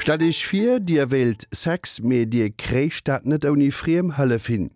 Stellt Iech vir, Dir wéilt Sex, mee Dir kréicht dat net ouni friem Hëllef hin.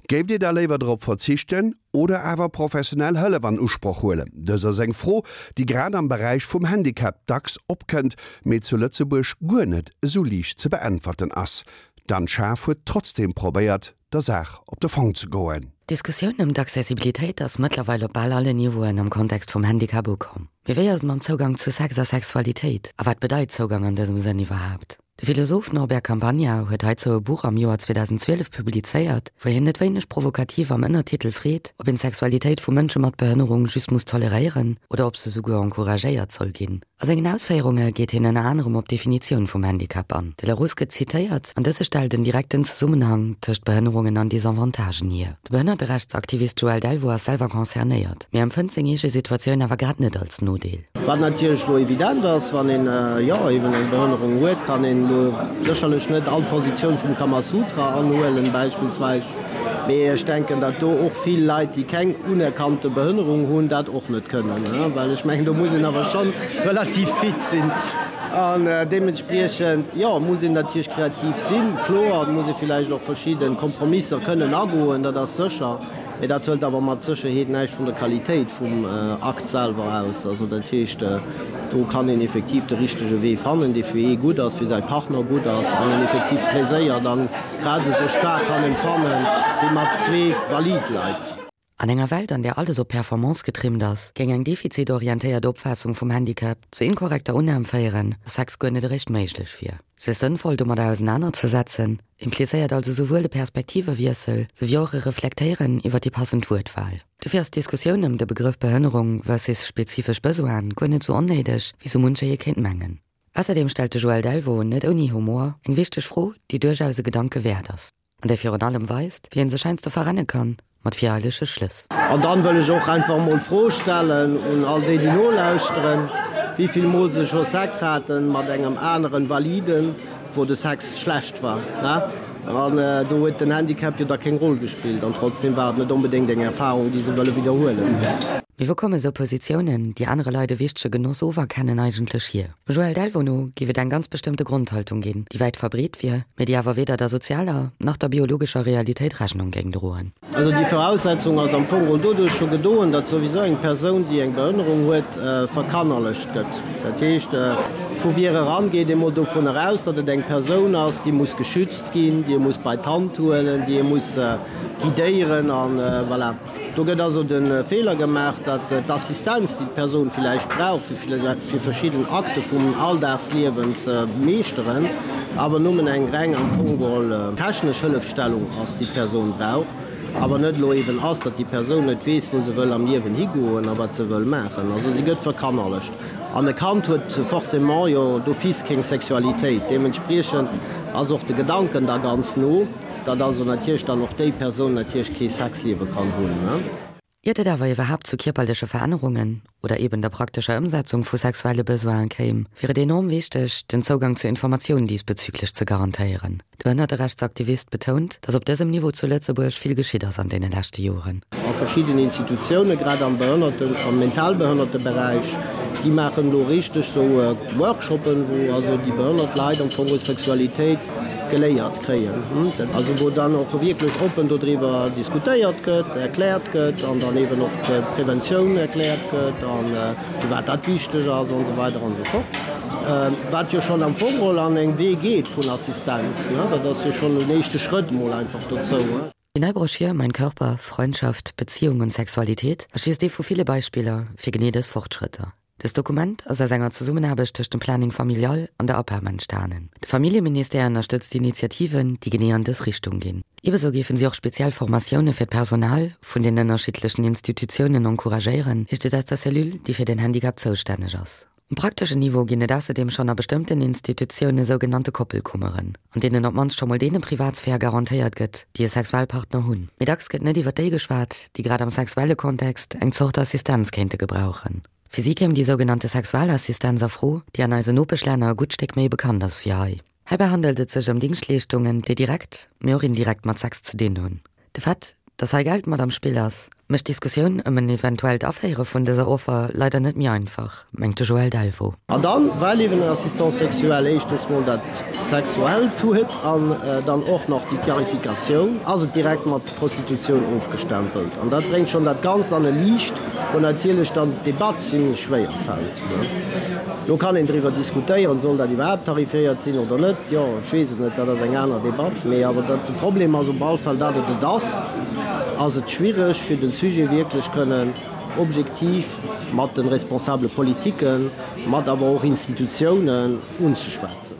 Géift Dir da léiwer drop verzichten oder awer professionell Hëllef an Usproch huelen? Dës ass eng Fro, déi grad am Beräich vum Handicap dacks opkënnt, mee zu Lëtzebuerg guer net esou liicht ze beäntwerten ass. D'Anne Schaaf huet trotzdeem probéiert, der Saach op de Fong ze goen. D'Diskussioun ëm d'Accessibilitéit ass mëttlerweil op bal allen Niveauen am Kontext vum Handicap ukomm. Mee wéi ass et mam Zougang zu Sex a Sexualitéit? A wat bedeit Zougang an dësem Sënn iwwerhaapt? De Philosoph Norbert Campagna huet heizou e Buch am Joer 2012 publizéiert, wou hien net wéineg provokativ am Ënnertitel freet, ob een d'Sexualitéit vu Mënsche mat Behënnerung just muss toleréieren oder ob se souguer encouragéiert soll ginn. A sengen Ausféierunge geet hien ënner anerem op d'Definitioun vum Handicap an. De Larousse gëtt zitéiert, an dëse stellt en direkten Zesummenhang tëscht Behënnerungen an Desavantagen hier. De Behënnerterechtsaktivist Joël Delvaux ass selwer concernéiert, mee empfënnt seng eege Situatioun awer grad net als Nodeel. Wat natierlech elo evident ass, wann een, jo, eben eng Behënnerung huet, kann een elo sécherlech net all Positioun vum Kamasutra anhuelen beispillsweis. Mee ech denken, datt do och vill Leit, déi keng unerkannte Behënnerung hunn, dat och net kënnen, well ech mengen, do muss een awer scho relativ fit sinn. An deementspriechend, jo, muss een natierlech kreativ sinn, kloer, et muss ee villäicht och verschidde Kompromisser kënnen agoen, dat ass sécher. Mee dat hëlt awer mat Sécherheet näischt vun der Qualitéit vum Akt selwer aus. Also dat heescht, do kann een effektiv de richtege Wee fannen, dee fir ee gutt ass, fir säi Partner gutt ass an een effektiv Pleséier dann grad esou staark kann empfannen, wéi mat zwee valid Leit. An enger Welt, an där alles op Performance getrimmt ass, géing eng defizitorientéiert Opfaassung vum Handicap zur inkorrekter Unnam féieren, dass Sex guer net eréischt méiglech wier. Sech sënnvoll domadder ausenanerzesetzen, implizéiert also souwuel e Perspektivewiessel, souwéi och e Reflektéieren iwwer déi passend Wuertwahl. Dofir ass d'Diskussioun ëm de Begrëff Behënnerung versus spezifesch Besoine guer net sou onnéideg, wéi sou muncher ee kéint mengen. Ausserdeem stellt de Joël Delvaux, net ouni Humor, eng wichteg Fro, déi duerchaus e Gedanke wäert ass, an déi virun allem weist, wéi een sech heiansdo verrenne kann mat vireilege Schlëss. An dann wëll ech och einfach emol d'Fro stellen un all déi, déi nolauschteren, wéi vill Mol se scho Sex haten mat engem aneren Validen, wou de Sex schlecht war. An do huet den Handicap jo da keng Roll gespillt an trotzdem war et net onbedéngt eng Erfahrung, déi se wëlle widderhuelen. Mee wou komme sou Positiounen, déi anere Leit e wichtege Genoss oferkennen, eigentlech hier? Dem Joël Delvaux no géif et eng ganz bestëmmte Grondhaltung ginn, déi wäit verbreet wier, mee déi awer weder der sozialer nach der biologescher Realitéit Rechnung géing droen. Also déi Voraussetzung ass am Fong geholl doduerch scho gedoen, datt souwisou eng Persoun, déi eng Behënnerung huet, verkannerlecht gëtt. Dat heescht, vu vir eran geet ee mol dovunner aus, datt et eng Persoun ass, déi muss geschützt ginn, déi ee muss bei d'Hand huelen, déi ee muss guidéieren an voilà. Do gëtt also de Feeler gemaach, datt d'Assistenz, déi d'Persoun villäicht brauch, fir verschidden Akte vum Alldagsliewen ze meeschteren, awer nëmmen eng reng am Fong geholl technesch Hëllefstellung ass, déi d'Persoun brauch, awer net elo eben ass, datt déi Persoun net weess, wou se wëll am Liewen higoen a wat se wëll maachen. Also si gëtt verkannerlecht. An e Kand huet forcément jo d'office keng Sexualitéit. Deementspriechend ass och de Gedanken da ganz no. Datt also natierlech dann och déi Persoun natierlech kee Sexliewe kann hunn. Iert et awer iwwerhaapt zu kierperleche Verännerungen oder eben der praktescher Ëmsetzung vu sexuelle Besoine kéim, wier et enorm wichteg, den Zougang zu Informatioun diesbezüglech ze garantéieren. De Behënnerterechtsaktivist betount, datt op dësem Niveau zu Lëtzebuerg vill geschitt ass an deene leschte Joren. A verschidden Institutiounen, grad am Behënnerten-, am Mentalbehënnerteberäich, déi maachen elo richteg sou Workshoppen, wou also déi behënnert Leit am Fong Sexualitéit geléiert kréien, also wou dann och wierklech oppen dodriwwer diskutéiert gëtt, erkläert gëtt an dann eeben och d'Preventioun erkläert gëtt a firwat dat wichteg ass an esou weider an esou fort. Wat jo schonn am Fong geholl an eng Wee geet vun Assistenz, dat ass jo schonn en éischte Schrëtt emol einfach dozou. Déi nei Broschür Mein Körper, Freundschaft, Beziehung und Sexualität ass just ee vu ville Beispiller fir genee dës Fortschrëtter. Dëst Dokument ass aus enger Zesummenaarbecht tëscht dem Planning Familial an der APEM entstanen. De Familljeministère ënnerstëtzt Initiativen, déi genee an dës Richtung ginn. Ebesou géifen si och speziell Formatioune fir d'Personal vun den ënnerschiddlechen Institutiounen encouragéieren, heescht et aus der Cellule, déi fir den Handicap zoustänneg ass. Um prakteschen Niveau ginn et ausserdeem schonn a bestëmmten Institutioune sougenannte Koppelkummeren, an deenen op d'mannst scho mol deene Privatsphär garantéiert gëtt, déi e Sexualpartner hunn. Mee dacks gëtt net iwwer déi geschwat, déi grad am sexuelle Kontext eng Zort Assistenz kéinte gebrauchen. Fir si kéim déi sougenannte Sexualassistenz a Fro, déi an eisen Nopeschlänner e gutt Stéck méi bekannt ass wéi hei. Heibäi handelt et sech ëm Dingschtleeschtungen, déi direkt, mee och indirekt mat Sex ze dinn hunn. De Fait, dass hei Geld mat am Spill ass, Mécht d'Diskussioun ëm en eventuellt Aféiere vun dëser Offer leider net méi einfach, mengt de Joël Delvaux. An dann, well eben en Assistant sexuel éischtens mol dat Sexuellt huet an dann och nach déi Tarifikatioun, ass et direkt mat Prostitutioun ofgestempelt. An dat bréngt schonn dat Ganzt an e Liicht, wou natierlech dann d'Debatt zimlech schwéier fält. Lo kann een driwwer diskutéieren, soll dat iwwerhaapt tarifiéiert sinn oder net? Jo, ech weess et net, dat ass eng aner Debatt. Mee awer dat, de Problem ass op all Fall, dat et et ass, ass et schwiereg fir de Sujet wierklech kënnen objektiv mat de responsable Politiken, mat awer och Institutiounen unzeschwätzen.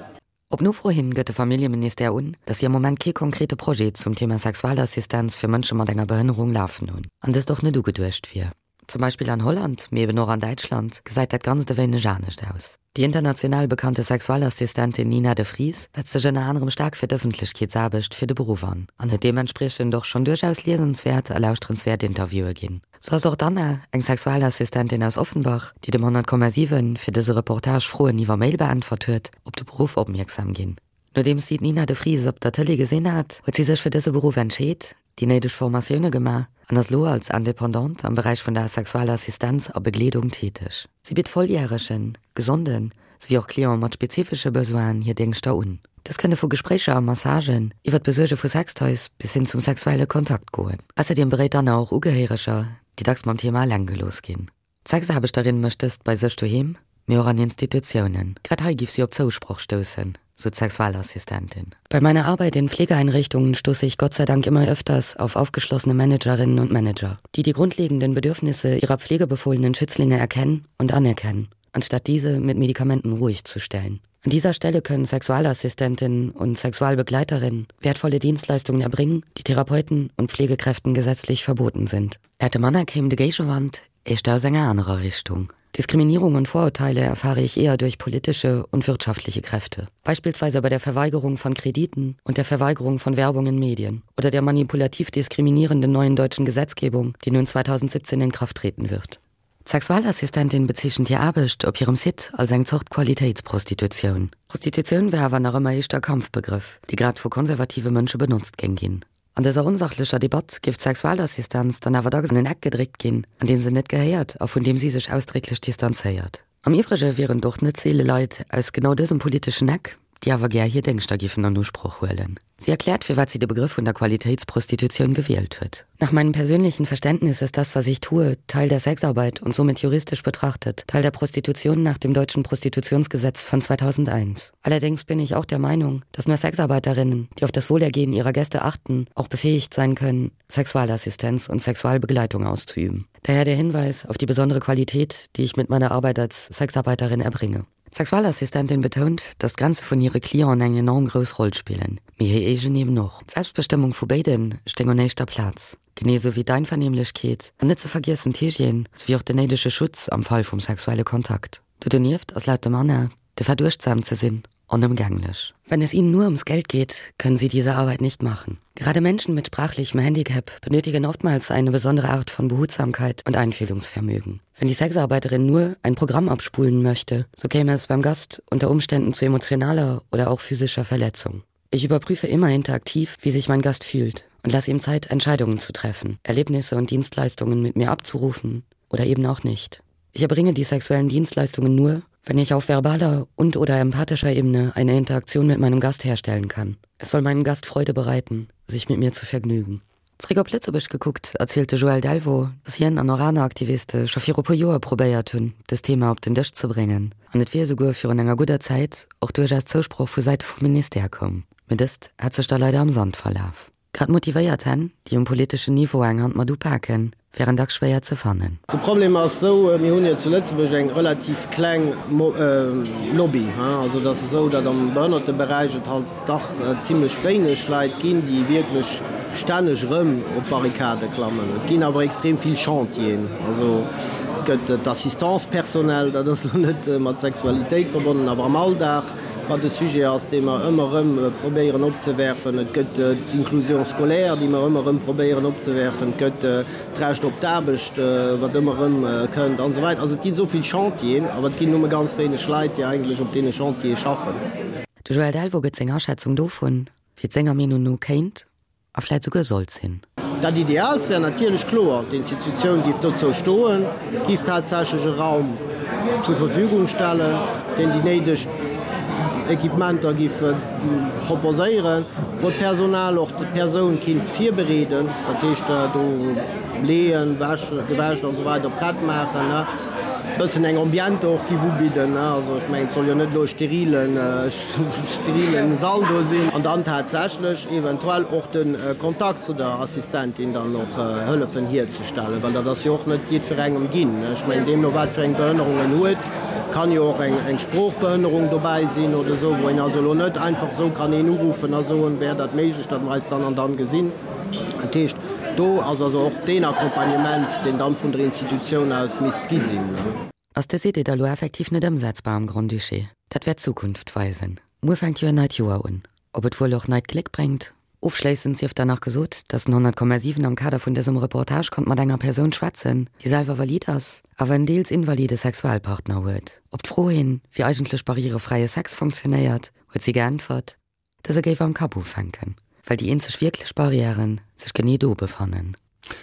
Op Nofro hin gëtt de Familljeministère un, datt si am Moment kee konkrete Projet zum Thema Sexualassistenz fir Mënsche mat enger Behënnerung lafen hunn an dëst och net ugeduecht wier. Zum Beispill an Holland, mee eben och an Däitschland, gesäit dat Ganzt e wéineg anescht aus. Déi international bekannte Sexualassistentin Nina de Vries setzt sech ënner anerem staark fir d'Ëffentlechkeetsaarbecht fir de Beruff an, an huet deementspriechend och schonn duerchaus liesenswäert a lauschterenswäert Interviewe ginn. Sou ass och d'Anna, eng Sexualassistentin aus Offenbach, déi dem 100,7 fir dëse Reportage Froen iwwer Mail beäntwert huet, op de Beruff opmierksam ginn. Nodeems si d'Nina de Vries op der Tëlee gesinn hat, huet si sech fir dëse Beruff entscheet, déi néideg Formatioune gemaach an ass lo als Independante am Beräich vun der Sexualassistenz a Begleedung täteg. Si bitt Volljäregen, Gesonden, souwéi och Clienten mat spezifesche Besoinen hir Déngschter un. Dës kënne vu Gespréicher a Massagen, iwwer d'Besuerge vu Sextoys bis hin zum sexuelle Kontakt goen. Ausserdeem beréit d'Anna och Ugehéireger, déi dacks mam Thema eleng gelooss ginn. D'Sexaarbechterin mécht dëst bei sech doheem, mee och an Institutiounen. Grad hei giff si op Zousproch stoussen, sou d'Sexualassistentin. Bei meiner Arbeit in Pflegeeinrichtungen stoße ich Gott sei Dank immer öfters auf aufgeschlossene Managerinnen und Manager, die die grundlegenden Bedürfnisse ihrer pflegebefohlenen Schützlinge erkennen und anerkennen, anstatt diese mit Medikamenten ruhig zu stellen. An dieser Stelle können Sexualassistentinnen und Sexualbegleiterinnen wertvolle Dienstleistungen erbringen, die Therapeuten und Pflegekräften gesetzlich verboten sind. Laut dem Anna kéim de Géigewand éischter aus enger anerer Richtung. Diskriminierung und Vorurteile erfahre ich eher durch politische und wirtschaftliche Kräfte. Beispielsweise bei der Verweigerung von Krediten und der Verweigerung von Werbung in Medien oder der manipulativ diskriminierenden neuen deutschen Gesetzgebung, die nun 2017 in Kraft treten wird. D'Sexualassistentin bezeechent hir Aarbecht op hirem Site als eng Zort Qualitéitsprostitutioun. Prostitutioun wär awer nach ëmmer éischter e Kampfbegrëff, dee grad vu konservative Mënsche benotzt géing ginn. An dëser onsachlecher Debatt géif d'Sexualassistenz dann awer dacks an en Eck gedréckt ginn, an deen se net gehéiert a vun deem si sech ausdrécklech distanzéiert. Am Iwwrege wieren et och net seele Leit aus genau dësem politeschen Eck, déi awer gär hir Déngschter giffen an Usproch huelen. Sie erkläert, firwat sie de Begrëff vun der Qualitätsprostitution gewielt huet. Nach meinem persönlichen Verständnis ist das, was ich tue, Teil der Sexarbeit und somit juristisch betrachtet Teil der Prostitution nach dem deutschen Prostitutionsgesetz von 2001. Allerdings bin ich auch der Meinung, dass nur Sexarbeiterinnen, die auf das Wohlergehen ihrer Gäste achten, auch befähigt sein können, Sexualassistenz und Sexualbegleitung auszuüben. Daher der Hinweis auf die besondere Qualität, die ich mit meiner Arbeit als Sexarbeiterin erbringe. D'Sexualassistentin betount, datt d'Grenze vun hire Clienten eng enorm grouss Roll spillen, mee hir eegen eben och. D'Selbstbestëmmung vu béide stéing un éischter Plaz, genee esou wéi d'Einvernehmlechkeet an net ze vergiessen d'Hygiène souwéi och den néidege Schutz am Fall vum sexuelle Kontakt. Do donieft ass laut dem Anna de Verduecht sam ze sinn onëmgänglech. Wenn es ihnen nur ums Geld geht, können sie diese Arbeit nicht machen. Gerade Menschen mit sprachlichem Handicap benötigen oftmals eine besondere Art von Behutsamkeit und Einfühlungsvermögen. Wenn die Sexarbeiterin nur ein Programm abspulen möchte, so käme es beim Gast unter Umständen zu emotionaler oder auch physischer Verletzung. Ich überprüfe immer interaktiv, wie sich mein Gast fühlt und lasse ihm Zeit, Entscheidungen zu treffen, Erlebnisse und Dienstleistungen mit mir abzurufen oder eben auch nicht. Ich erbringe die sexuellen Dienstleistungen nur, wenn ich auf verbaler und oder empathischer Ebene eine Interaktion mit meinem Gast herstellen kann. Es soll meinem Gast Freude bereiten, sich mit mir zu vergnügen. Zréck op Lëtzebuerg gekuckt, erzielt de Joël Delvaux, datt hien an och aner Aktiviste scho viru puer Joer probéiert hunn, dëst Thema op den Dësch ze bréngen an et wier esouguer virun enger gudder Zäit och duerchaus Zousproch vu Säite vum Ministère koum. Mee dëst hätt sech da leider am Sand verlaf. Grad motivéiert Hänn, déi um politeschen Niveau eng Hand mat upaken, wären dacks schwéier ze fannen. De Problem ass esou, mir hunn jo zu Lëtzebuerg eng relativ kleng Lobby. Also et ass esou, datt am Behënnerteberäich et halt dach zimlech wéineg Leit ginn, déi wierklech stänneg erëm op d'Barrikade klammen. Et ginn awer extrem vill Chantieren. Also et gëtt d'Assistance personnelle, dat ass elo net mat Sexualitéit verbonnen, awer am Alldag, wat e Sujet ass, dee mer ëmmer erëm probéieren opzewerfen. Et gëtt d'Inclusion scolaire, déi mer ëmmer erëm probéieren opzewerfen. Et gëtt d'Recht op d'Aarbecht, wat ëmmer erëm kënnt, an esou weider. Also et ginn esou vill Chantieren, awer et ginn nëmme ganz wéineg Leit, déi eigentlech op deene Chantiere schaffen. De Joël Delvaux gëtt seng Aschätzung dovun, wéi et senger Meenung no kéint a vläit souguer sollt sinn. Dat Ideaalst wär natierlech kloer, d'Institutioun géif dozou stoen, géif tatsächlech e Raum zur Verfügung stellen, deen déi néideg Equipementer géif proposéieren, wou d'Personal och d'Persoun kinnt virbereeden, dat heescht do leeën, wäschen, gewäscht an esou weider prett maachen, e bëssen eng Ambiente och géif ubidden. Also ech mengen, et soll jo net elo e sterilen, sterilen Sall do sinn. An dann tatsächlech eventuell och de Kontakt zu der Assistentin dann och hëllefen hierzestellen, well dat ass jo och net jiddwerengem ginn. Ech mengen, deemno wat fir eng Behënnerung en huet, kann jo och eng Sproochbehënnerung dobäi sinn oder esou, wou een also elo net einfach esou kann een uruffen a soen, wär dat méiglech, datt mer eis dann an dann gesinn. Dat heescht, do ass also och deen Accompagnement, deen dann vun der Institutioun aus misst gi sinn. Ass dës Idee da lo effektiv net ëmsetzbar am Grand-Duché? Dat wäert d'Zukunft weisen. Muer fänkt jo en neit Joer un. Ob et wuel och neit Gléck bréngt? Ofschléissend sief dann nach gesot, dass den 100,7 am Kader vun dësem Reportage konnt mat enger Persoun schwätzen, déi selwer valid ass, awer en deels invalide Sexualpartner huet. Op d'Fro hin, wéi eigentlech barrierefräie Sex funktionéiert, huet si geäntwert, dëse géif am Kapp ufänken, well déi eenzeg wierklech Barrièren sech genee do befannen.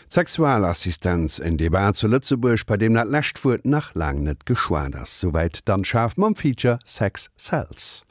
D'Sexualassistenz, en Debat zu Lëtzebuerg, bei deem dat lescht Wuert nach laang net geschwat ass. Souwäit d'Anne Schaaf mam Feature Sex Sells.